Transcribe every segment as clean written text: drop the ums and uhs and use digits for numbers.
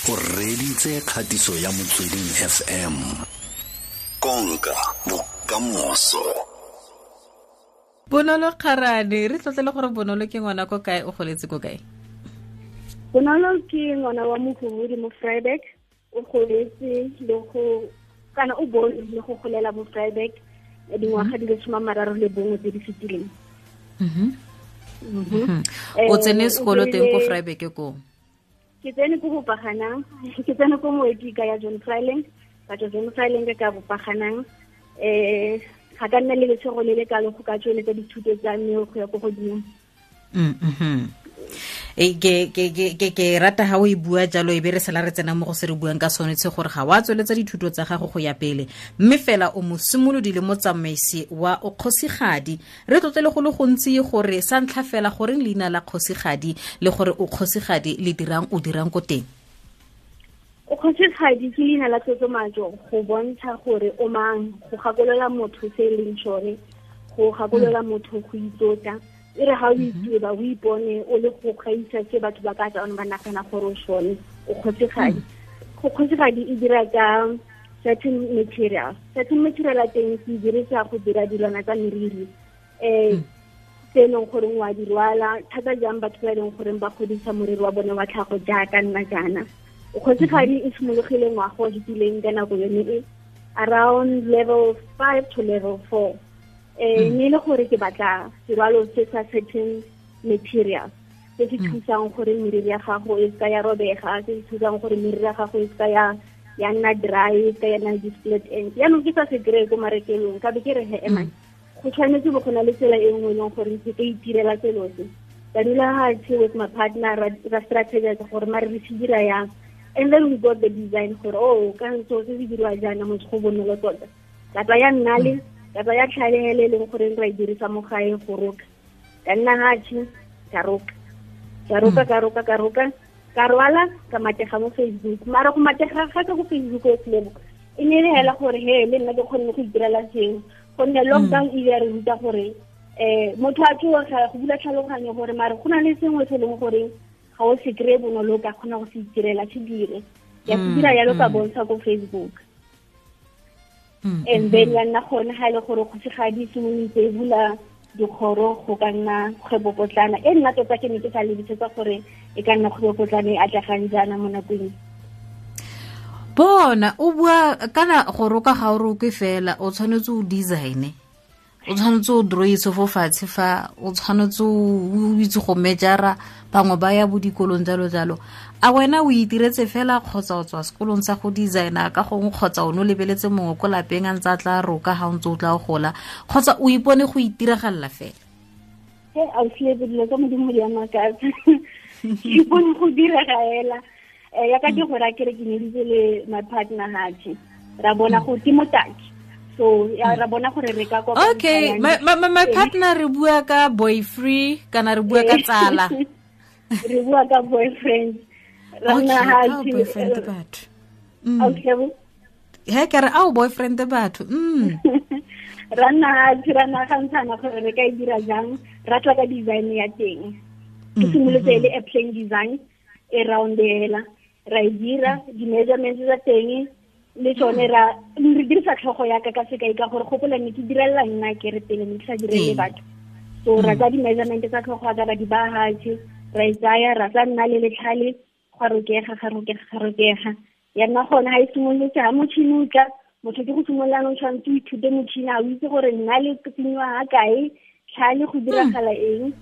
O reditse kgatiso ya Motsweding FM. Konka bokamoso. Bonolo Kgarane, re tlotlele gore Bonolo ke ngwana ko kae, o goletse ko kae? Bonolo ke ngwana wa Mohumudi mo Vryburg, o goletse le go kana o bone le go golela mo Vryburg dingwaga di le 31 tse di fetileng. O tsene sekolo teng ko Vryburg ko? Ke tsene ko Bopaganang, ke tsene ko Moedika ya John Fryling, ka tswa John Fryling ka Bopaganang. Ga ka nna le letshego le le kalo go ka tsweletsa dithuto tsa me go ya ko godimo. Ke rata ha o e bua jalo, e be re sala re tsena mo go se re buang ka sone tse gore ga wa tsweletsa dithuto tsa gago go ya pele, mme fela o mosimolodi le motsamaisi wa o kgosigadi. Re tlotlele go le gontsi gore sa ntlha fela goreng leina la kgosigadi le gore o kgosigadi le dirang, o dirang ko teng? O kgosigadi ke leina la tlotlomatso go bontsha gore o mang, go gakolola motho se e leng sone, go gakolola motho go itlotla. E re ga o itseba, o ipone o le go gaisa se batho ba ka tswang ba nagana gore o sone, o kgosigadi. Go kgosigadi e dira ka certain material. Certain material a teng ke dirisa go dira dilwana tsa meriri. Tse e leng gore wa di rwala, thata jang batho ba e leng gore ba godisa moriri wa bone wa tlhago jaaka nna jaana. O kgosigadi e simologile ngwaga o fetileng ka nako yone e, around level 5 to level 4. Mme le gore ke batla serwalo se sa certain material se se thusang gore meriri ya gago e seka ya robega, se se thusang gore meriri ya gago e seka ya nna dry, e seka ya nna di-split ends. Jaanong ke sa se kry-e ko marekelong, ka be ke re he, emang, go tshwanetse bo go na le tsela e nngwe e leng gore ke ka itirela selo se. Ka dula fatshe with my partner, ra strategize gore mare re se dira yang. And then we got the design gore, oh, ka ntse se se dirwa jaana, motho go bonolo tota. Ka tsaya nnale, ka tsaya tlhalele e leng gore ra e dirisa mo gae go roka. Ka nna hatshe, ka roka. Ka roka, ka roka, ka roka. Ka rwala, ka matega mo Facebook. Mara go matega ga ka go Facebook o Lebo, e ne e le hela gore he, le nna ke kgonne go itirela sengwe. Gonne lockdown e ile ya re ruta gore, motho a tsoga go bula tlhaloganyo gore mare go na le sengwe se e leng gore ga o se kry-e bonolo, o ka kgona go se itirela, se dire. Ke a se dira jalo, ka bontsha ko Facebook. And then ya nna gone ga e le gore kgosigadi e simolotse e bula dikgoro go ka nna kgwebopotlana. E nna tota ke ne ke sa lebisetsa gore e ka nna kgwebopotlana e atlegang jaana mo nakong e. Bona, o bua kana go roka ga o roke fela, o tshwanetse o design-e, o tshwanetse o drawise fo fatshe fa, o tshwanetse o itse go mejara, bangwe ba ya bo dikolong jalo jalo. A wena o itiretse fela kgotsa o tswa sekolong sa go designer ka gongwe, kgotsa o ne o lebeletse mongwe ko lapeng a ntse a tla roka ga o ntse o tla o gola, kgotsa o ipone go itiragalela fela? He, ausi Lebo, dilo tsa Modimo di a makatsa. Ke ipone go direga fela. Ya ka ke gore a kere ke nyeditse le my partner hatshe, ra bona go ke motaki. So, ya, ra bona gore re ka kopa Okay, ntlha ya my partner re bua ka boyfriend kana re bua ka tsala? Re bua ka boyfriend. Ra Okay, nna ka hatshe, boyfriend batho. Okay, bo. He, ke re, ao, boyfriend batho. Ra nna hatshe, ra nagantshana gore re ka e dira jang, ra tla ka design ya teng. Ke simolotse e le a plain design e round hela. Ra e dira, di-measurements tsa teng le tsone re dirisa tlhogo ya ka ka sekai ka gore gopola ne ke direla nna ke re pele ne ke sa direle batho. So ra tsa di-measurement tsa tlhogo ya ka ra di baya fatshe, ra e tsaya, ra tsa nna le letlhale, gwa rokega, ga rokega, ga rokega. Ya nna gone ha e simolotse, ha motšhini o tla, motho ke go simolola jaanong tshwanetse o ithute motšhini, a o itse gore nna le tsenyiwa ga kae, tlhale go diragala eng.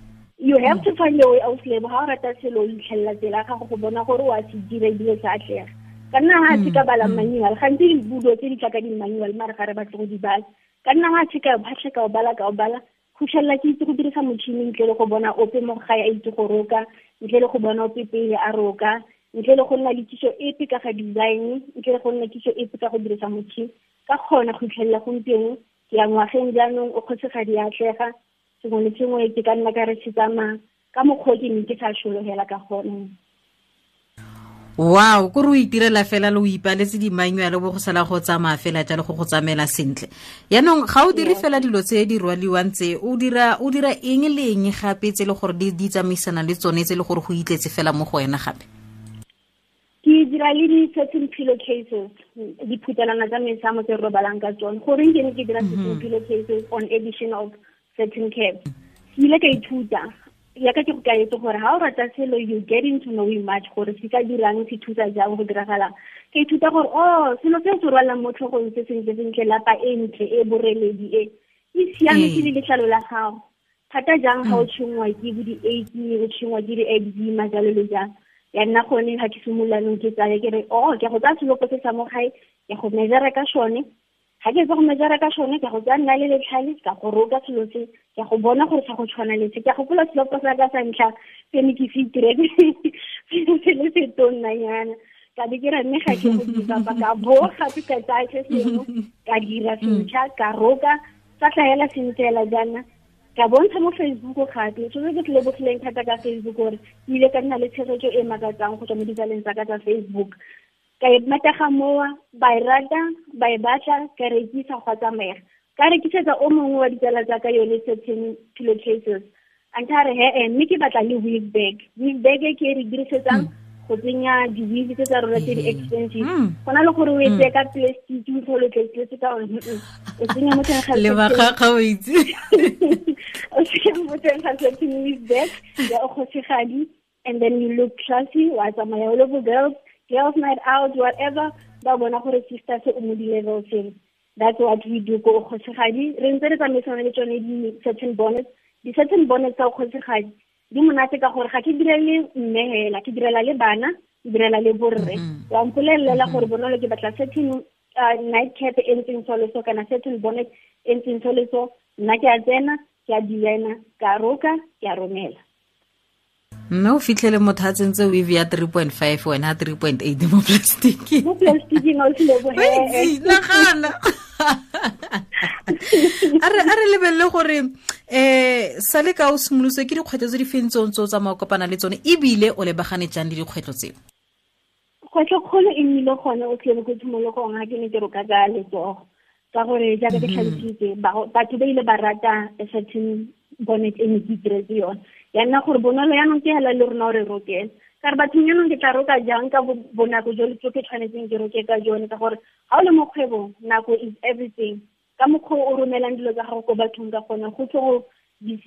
You have to find a way out, Lebo. Ha o rata selo, o itlhelela tsela ya gago go bona gore o a se dira ebile se atlega. Ka nna ha se ka bala manual, gantsi dibulo tse di tla ka di-manual, mare ga re batle go di bala. Ka nna ha se ka phatlha ka o bala, ka o bala, go fitlhelela ke itse go dirisa motšhini ntle le go bona ope mo gae a itse go roka, ntle le go bona ope pele a roka, ntle le go nna le kitso epe ka ga design, ntle le go nna kitso epe ka go dirisa motšhini. Ka kgona go fitlhelela gompieno, ke ya ngwageng jaanong, o kgosigadi ya atlega, sengwe le sengwe ke ka nna ka re se tsamaya ka mokgwa o ke neng ke sa sologela ka gone. Wow, ko re o itirela fela le o ipaletse di-manual bo go sala go tsamaya fela jalo go go tsamaela sentle. Yaanong ga o dire fela dilo tse di rwaliwang tse, o dira eng le eng gape tse e le gore di tsamaisana le tsone tse e le gore go itletse fela mo go wena gape? Ke Ke dira le di-certain pillowcases, diphutelana tsa mesamo tse re robalang ka tsone. Goreng ke ne ke dira certain pillowcases on edition of certain cap? Ke ile ka ithuta yaka ke go kaetse gore ha o rata selo, you get into knowing much gore se ka dirang, se thusa jang, go diragalang. Ka ithuta gore oh, selo se se rwalang mo tlhogong se sentle sentle, lapa e ntle e boreledi e e siametse le letlalo la gago thata jang ga o tshwenngwa ke bo di-acne, o tshwenngwa ke di-eczema, jalo le jang. Ya nna gone ga ke simololanong ke tsaya ke re, oh, ke go tsaya selopo se sa mo gae, ke go measure ka sone. Ga ke tsa go measure ka sone, ke go tsaya nna le letlhale, ka go roka selo se, ke go bona gore sa go tshwana le se. Ke gopola selopo sa ka sa ntlha se ne ke se itiretse se le se tonnanyana, ka be ke re mme ga ke go dira, ka bo gape ka tsaya se sengwe, ka dira sentšha, ka roka, sa tlhaela sentle jaana, ka bontsha mo Facebook gape. So se ke se lebogileng thata ka Facebook gore ke ile ka nna le tshegetso e makatsang go tswa mo ditsaleng tsa ka tsa Facebook. Ka e matega mowa, ba e rata, ba e batla, ka rekisa, gwa tsamega. Ka rekisetsa o mongwe wa ditsala tsa ka yone certain pillowcases, a ntha re he, mme ke batla le weave bag. Weave bag e ke e re dirisetsang go tsenya di-weave tse tsa rona tse di expensive, go na le gore o e tseye ka plastic, o tlhole tletse ka one, o tsenya mo teng ga le bakgakga o itse. O tsenya mo teng ga certain weave bag ya o kgosigadi, and then you look classy, wa tsamaya o le bo girls night out, whatever, ba bona gore sister se o mo di-level seng. That's what we do ko kgosigadi. Re ntse re tsamaisana le tsone di-certain bonnets. Di-certain bonnets tsa kgosigadi di monate ka gore ga ke direle mme hela, ke direla le bana, ke direla le borre. Wa mpolelela gore bonolo ke batla certain night cap e ntseng so le so, kana certain bonnet e ntseng so le so, nna ke a tsena, ke a designer, ka roka, ke a romela. Mme o fitlhele motho a tsentse weave ya 3.5, wena 3.8 mo plastic. Mo plasticing o tlile bo. Nagana. A re lebelele gore sa le ka o simolotse, ke dikgwetlho tse di feng tse o ntse o tsamaya o kopana le tsone, ebile o lebagane jang le dikgwetlho tseo? Kgwetlho kgolo e nnile gone o tlile ko tshimologong ga ke ne ke roka ka letsogo, ka gore jaaka ke tlhalositse, batho ba ile ba rata a certain bonnet e ne ke itiretse yone. Ya nna gore bonolo yaanong ke hela le rona o re rokela. Ka re bathong, yaanong ke tla roka jang ka bonako jo ke tshwanetseng ke roke ka jone? Ka gore ga o le mo kgwebong, nako is everything. Ka mokgwa o romelang dilo tsa gago ko bathong ka gone, go tlo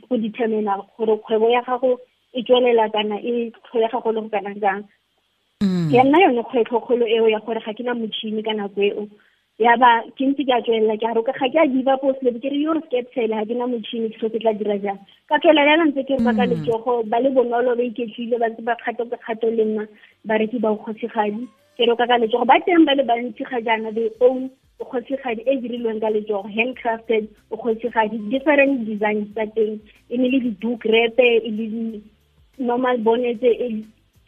go determina gore kgwebo ya gago e tswelela kana e tlholega go le go kana jang. Ya nna yone kgwetlho kgolo eo ya gore ga ke na motšhini ka nako eo. Ya ba ke ntse ke a tswelela ke a roka, ga ke a give up o sele, ke re yo re skeptele, ga ke na motšhini, ke so ke tla dira jang? Ka tswelela yana ntse ke roka ka letsogo. Ba le bonolo, ba iketlile, ba ntse ba kgato ka kgato le nna. Bareki ba kgosigadi ke roka ka letsogo ba teng ba le bantsi ga jaana. They own kgosigadi e dirilweng ka letsogo, handcrafted kgosigadi, different designs tsa teng, e ne le di-doek wrap, e le di-normal bonnet.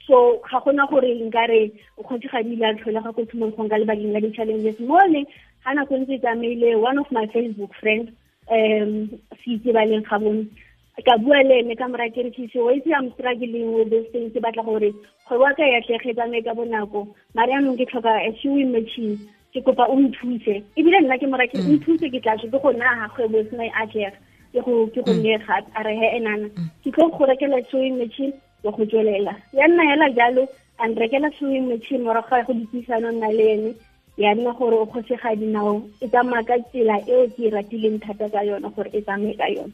So ga gona gore nkare o kgosigadi ile a tlholega ko tshimologong ka lebakeng la di-challenges mole. Ga nako ntse e tsamaile, one of my Facebook friends, se itse ba leng ga bone, ka bua le ene, ka mora ke re, "Sisi, wa itse I'm struggling with this thing. Ke batla gore kgwebo ya ka e atlege, tsamaye ka bonako, mare yaanong ke tlhoka a sewing machine. Ke kopa o nthuse." Ebile nna ke mora ke nthuse, ke tla ke go naga kgwebo e sena e atlega, ke go nne gape. A re, "He enana, ke tlo go rekela sewing machine wa go tswelela." Ya nna hela jalo, a nrekela sewing machine. Morago ga go dipuisano nna le ene, ya nna gore o kgosigadi nao e tsamaya ka tsela eo ke e ratileng thata ka yone, gore e tsamaye ka yone.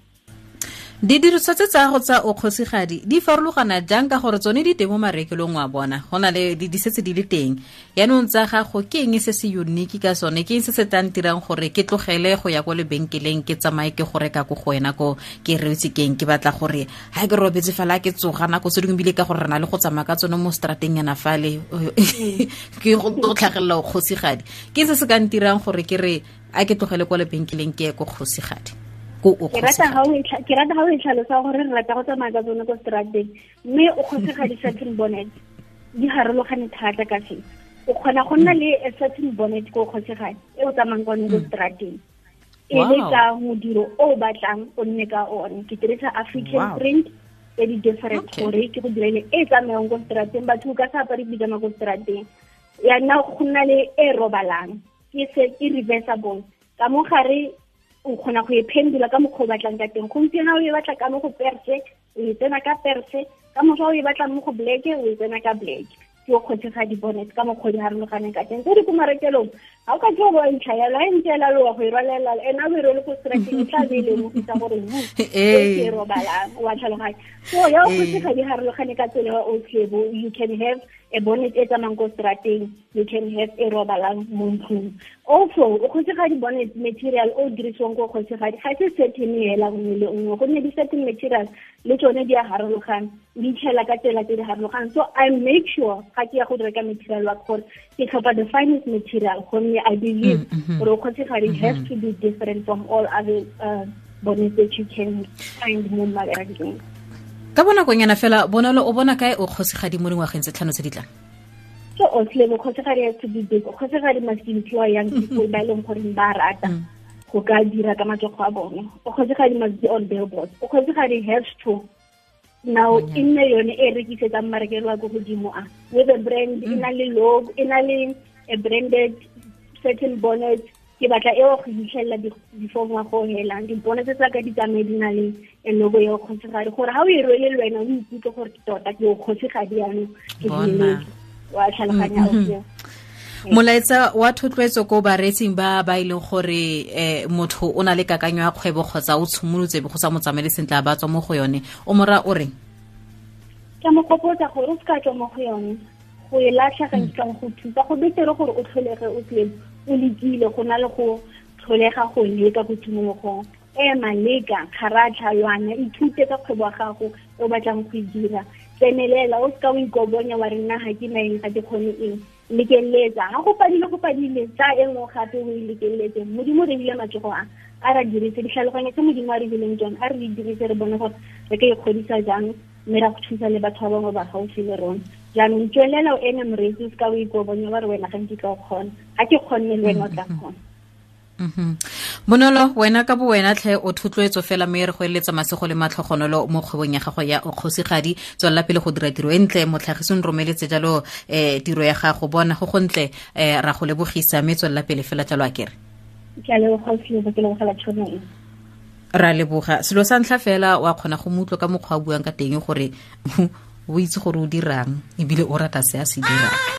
Didiriswa tse tsa go tsa o kgosigadi di farologana jang? Ka gore tsone di teng mo marekelong wa bona, go na le di setse di le teng. Yaanong tsa gago ke eng se se unique ka sone? Ke eng se se tlang dirang gore ke tlogele go ya ko lebenkeleng, ke tsamaye ke go reka ko go wena ko? Ke reetse keng? Ke batla gore ga ke robetse fela, ke tsoga nako tse dingwe, ebile ka gore re na le go tsamaya ka tsone mo strateng yana fale, ke go tlhagelela o kgosigadi. Ke se se ka ntirang gore ke re a ke tlogele kwa lebenkeleng, ke ye ko kgosigadi, ko o Ke rata ga o e tlhalosa gore re rata go tsamaya ka tsone ko strateng. Mme o kgosigadi satin bonnet di harologane thata ka se. O kgona go nna le a satin bonnet ko kgosigadi e o tsamayng ka one ko strateng, e le ka modiro o o batlang o nne ka one. Ke dirisa African print tse di different gore ke go direle e tsamayang ko strateng. Batho o ka sa apare pijama ko strateng. Ya nna go nna le e robalang, ke se ke reversible ka mo gare, o kgona go e phendula ka mokgwa o batlang ka teng. Gompieno o e batla ka mo go perse, o e tsena ka perse. Ka moso o e batla mo go black, o e tsena ka black. Ke o kgosigadi bonnet ka mokgwa di harologaneng ka teng. Tse di ko marekelong ga o ka ke o bontsha yalo, ga e ntse ela loa go e rwalela ena o e rwele ko strateng, e tla be e lemogisa gore e robalang, wa tlhaloganya. So ya o kgosigadi harologane ka tsela o tlebo, you can have a bonnet e tsamayng ko strateng, you can have e robalang mo ntlong. Also o kgosigadi bonnet material o dirisiwang ko kgosigadi ga se certain hela nngwe le nngwe, gonne di-certain material le tsone di a harologana, di itlhela ka tsela tse di harologaneng. So I make sure ga ke ya go reka material wa gore ke tlhopha the finest material, gonne I believe gore o kgosigadi has to be different from all other bonnets that you can find mo marekelong. Ka bonakonyana fela, Bonolo, o bona kae o kgosigadi mo dingwageng tse 5 tse di tlang? So o kgosigadi has to be big. O kgosigadi must employ young people ba e leng gore ba rata go ka dira ka matsogo a bone. O kgosigadi must be on billboards. O kgosigadi has to now e nne yone e rekisetsang marekelo a ko godimo a with a brand, e na le logo, e na le a branded certain bonnet. Ke batla eo go fitlhelela before ngwaga o helang. Dipone tse tsa ka di tsamaye di na le logo ya kgosigadi, gore ha o e rwele le wena o ikutlwe gore tota ke o kgosigadi jaanong, ke Bona. wa tlhaloganya o seo. Molaetsa wa thotloetso ko bareetsing ba ba e leng gore motho o na le kakanyo ya kgwebo kgotsa o tshimolotse be go sa mo tsamaele sentle a ba tswa mo go yone, o mora o reng? Ke mo gopotsa gore o seka tswa mo go yone, go e latlha ga nkitla go thusa. Go betere gore o tlholege o tle o lekile go na le go tlholega go leka ko tshimologong. Ema, leka, kgaratlha, lwana, ithute ka kgwebo ya gago e o batlang go e dira. Tsenelela, o seka o ikobonya wa re nna ga ke na eng, ga ke kgone eng. Lekeletsa, ga go padile, go padile, tsa e nngwe gape o e lekeletse. Modimo re bile matsogo a, a ra dirise ditlhaloganyo tse Modimo a re bileng tsone, a re di dirise re bone gore re ka ikgodisa jang, mme ra go thusa le batho ba bangwe ba gaufi le rona. Jaanong tswelela o eme moreetsi, o seka o ikobonya wa re wena ga nkitla o kgona, ga ke kgonne le wena o tla kgona. Bonolo, wena ka bo wena tlhe o thotloetso fela, mme re go eletsa masego le matlhogonolo mo kgwebong ya gago ya o kgosigadi. Tswelela pele go dira tiro e ntle, motlhagisi o nromeletse jalo tiro ya gago, bona go gontle, ra go lebogisa, mme tswelela pele fela jalo a kere. Ke a leboga, ke lebogela tšhono e. Ra leboga. Selo sa ntlha fela, wa kgona go mo utlwa ka mokgwa a buang ka teng gore o itse gore o dirang ebile o rata se a se dirang.